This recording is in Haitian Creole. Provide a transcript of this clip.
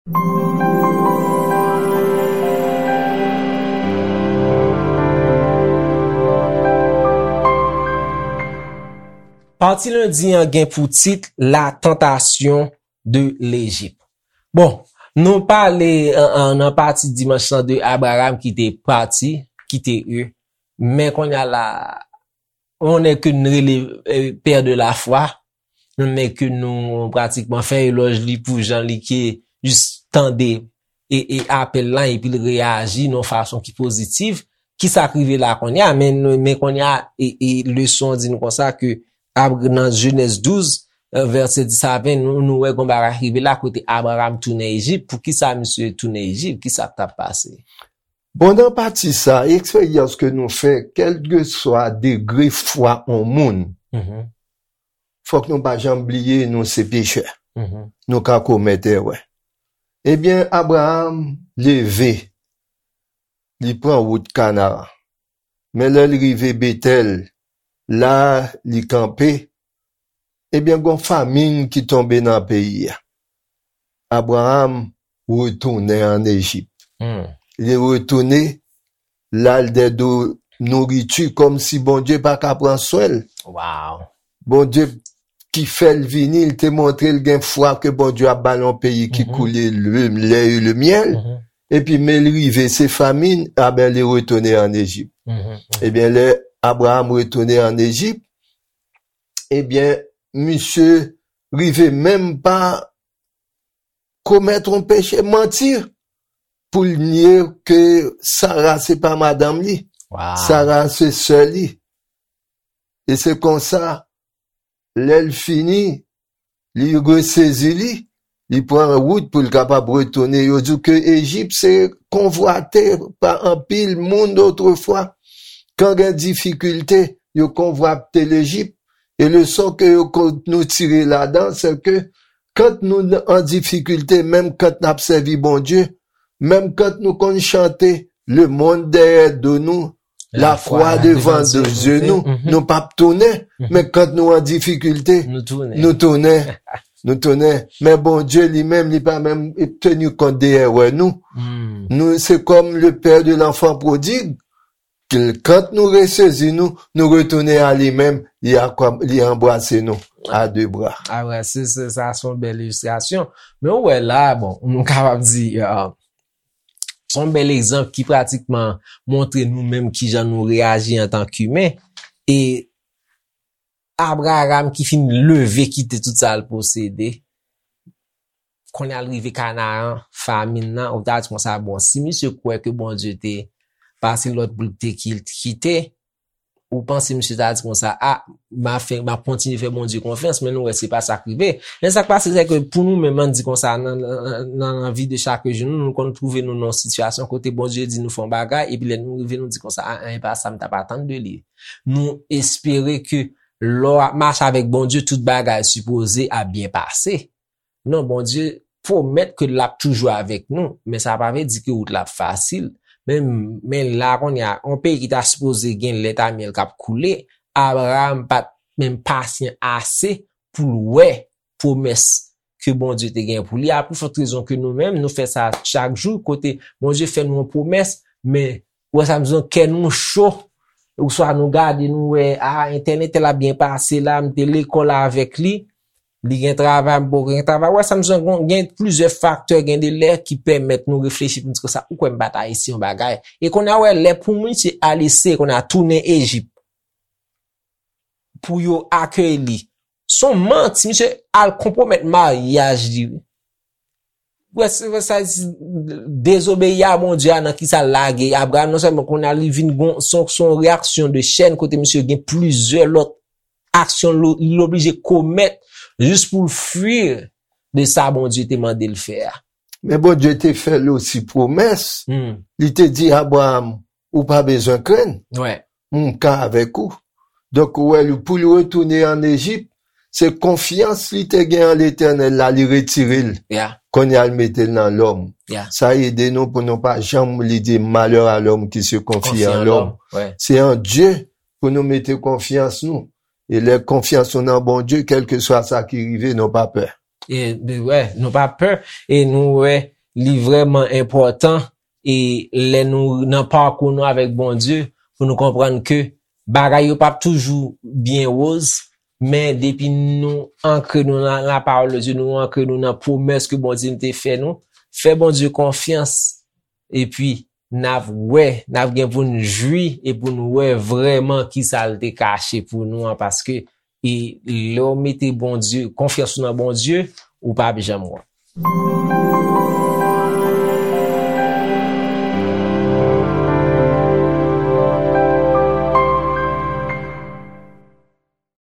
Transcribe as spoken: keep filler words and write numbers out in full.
Pati lendi an gen pou tit La Tentation de Lejip. Bon, nou pale an, an, nan pati dimanch lan de Abraram ki te pati, kite Ur. Men kounye a la, on est que nou rele eh, père de la foi, on est que nou pratikman fè elòj li pou jan li ke jis tande e, e apèl lan epi l reyaji nan fason ki pozitif. Kisa k rive la kounye a? Men, men kounye a, e, e leson an di nou konsa ke Ab- nan Jenèz douz, eh, vèsè dis a ven, nou, nou wè gon bagay rive la kote Abraram tounen Ejip. Poukisa misye tounen Ejip? Kisa k t ap pase? Bon, nan pati sa, eksperyans ke nou fè, kèlkeswa degre fwa on moun, fòk nou pa janm bliye nou se pechè. Nou ka komèt erè. Ebyen, Abraram leve, li pran wout Kanaran. Men lè l rive Betèl, la li kanpe, ebyen, gon famin ki tonbe nan peyi a. Abraram retounen ann Ejip. Li retounen, l al dèyè do nouriti kòmsi Bondye pa ka pran swen l. Wow. Bondye ki fè l vini, li te montre l gen fwa ke Bondye ap ba l yon peyi ki koule le lè e le myèl. Epi men l rive, se famin, aben li retounen ann Ejip. Ebyen, lè Abraram retounen ann Ejip, ebyen, misye rive menm pa komèt yon peche, manti, pou l nye ke Sara se pa madanm li. Sara se sè li. E se konsa, lè l fini, li resezi li, li pran wout pou l kapab retounen. Yo di w ke Ejip se konvwate pa anpil moun otrefwa. Kan gen difikilte, yo konvwate Lejip. E leson ke yo, nou tire ladan, se ke kan nou an difikilte, menm kan n ap sèvi Bondye, menm kan nou konn chante, le monde derrière de nous, la croix devant de yeux nous, nou p ap tounen, men kan nou an difikilte, nou tounen. Nou tounen. Men Bondye li menm, li pa menm teni kont de erè nou. Nou, se kòm le père de l'enfant prodigue, kan nou resezi nou, nou retounen a li menm, li, li anbrase nou a de bra. Ah ouais, se, se, sa se yon bèl ilistrasyon. Men ou wè la, bon, nou kapab di, uh, se yon bèl egzanp ki pratikman montre nou menm kijan nou reyaji antank imen. E Abraram ki fin leve kite tout sa l posede, kounye a l rive Kanaran, famin nan, ou ta di konsa, bon, si misye kwè ke Bondye te pase lòd pou l te kite, ou panse misye ta di konsa, a, m a fè, m a kontinye fè Bondye konfyans, men nou wè se pa sa k rive. Men sa k pase, se ke pou nou menm, ann di konsa, nan, nan, nan, nan vi de chak jou, nou, nou konn twouve nou nan yon sitiyasyon kote Bondye di nou fè yon bagay, epi lè nou rive, nou di konsa, a, a, e pa sa m t ap atann de li. Nou espere ke lè w ap mache avèk Bondye, tout bagay sipoze ap byen pase. Non, Bondye pwomèt ke l ap toujou avèk nou, men sa pa vle di ke wout la ap fasil. Men, men la kounye a, yon peyi ki ta sipoze gen lèt a myèl k ap koule, Abraram pa t menm pasyan ase pou l wè pwomès ke Bondye te gen pou li. A pli fòt rezon ke nou menm, nou fè sa chak jou, kote Bondye fè nou yon pwomès, men ou wè sa m di w, kè nou cho, oswa nou gade, nou wè, a, entèl, entèl ap byen pase la, m te lekòl avèk li, li gen travay, m poko gen travay. Ou wè sa m di w, gen plizyè faktè, gen de lè ki pèmèt nou reflechi pou n di konsa, ou kwè m pa ta eseye yon bagay. E kounye a, ou wè, lè pou misye al eseye, kounye a, tounen Ejip, pou yo akeyi li. Se yon manti, misye al konpwomèt maryaj li, wi. Wè, se, wè sa, dezobeyi a Bondye a nan kisa l lage Abraram, non sèlman kounye a li vin gon, se yon, se yon reyaksyon de chèn kote misye gen plizyè lòt aksyon l, li oblije komèt jis pou l fwi de sa Bondye te mande l fè a. Men Bondye te fè l osi pwomès. Li te di Abraram, ou pa bezwen krenn. M ka avèk ou. Donk, ou wè, li, pou li retounen ann Ejip, se konfyans li te gen an Letènèl la, li retire l. Kounye a, l mete l nan lòm. Sa ede nou pou nou pa janm li di, malheur à l'homme qui se confie en l'homme. Se an Dye pou nou mete konfyans nou. E lè konfyans nou nan Bondye, kèlkeswa sa ki rive, nou pa pè. E, wè, nou pa pè. E nou wè, li vrèman enpòtan e lè nou nan pakou nou avèk Bondye, pou nou konprann ke bagay yo p ap toujou byen woz, men depi nou ankre nou nan lapawòl de Dye, nou ankre nou nan pwomès ke Bondye te fè nou, fè Bondye konfyans, epi n ap wè, n ap gen pou n jwi e pou n wè vrèman kisa l te kache pou nou an, paske e lè w mete Bondye, konfyans ou nan Bondye, ou p ap janm wont.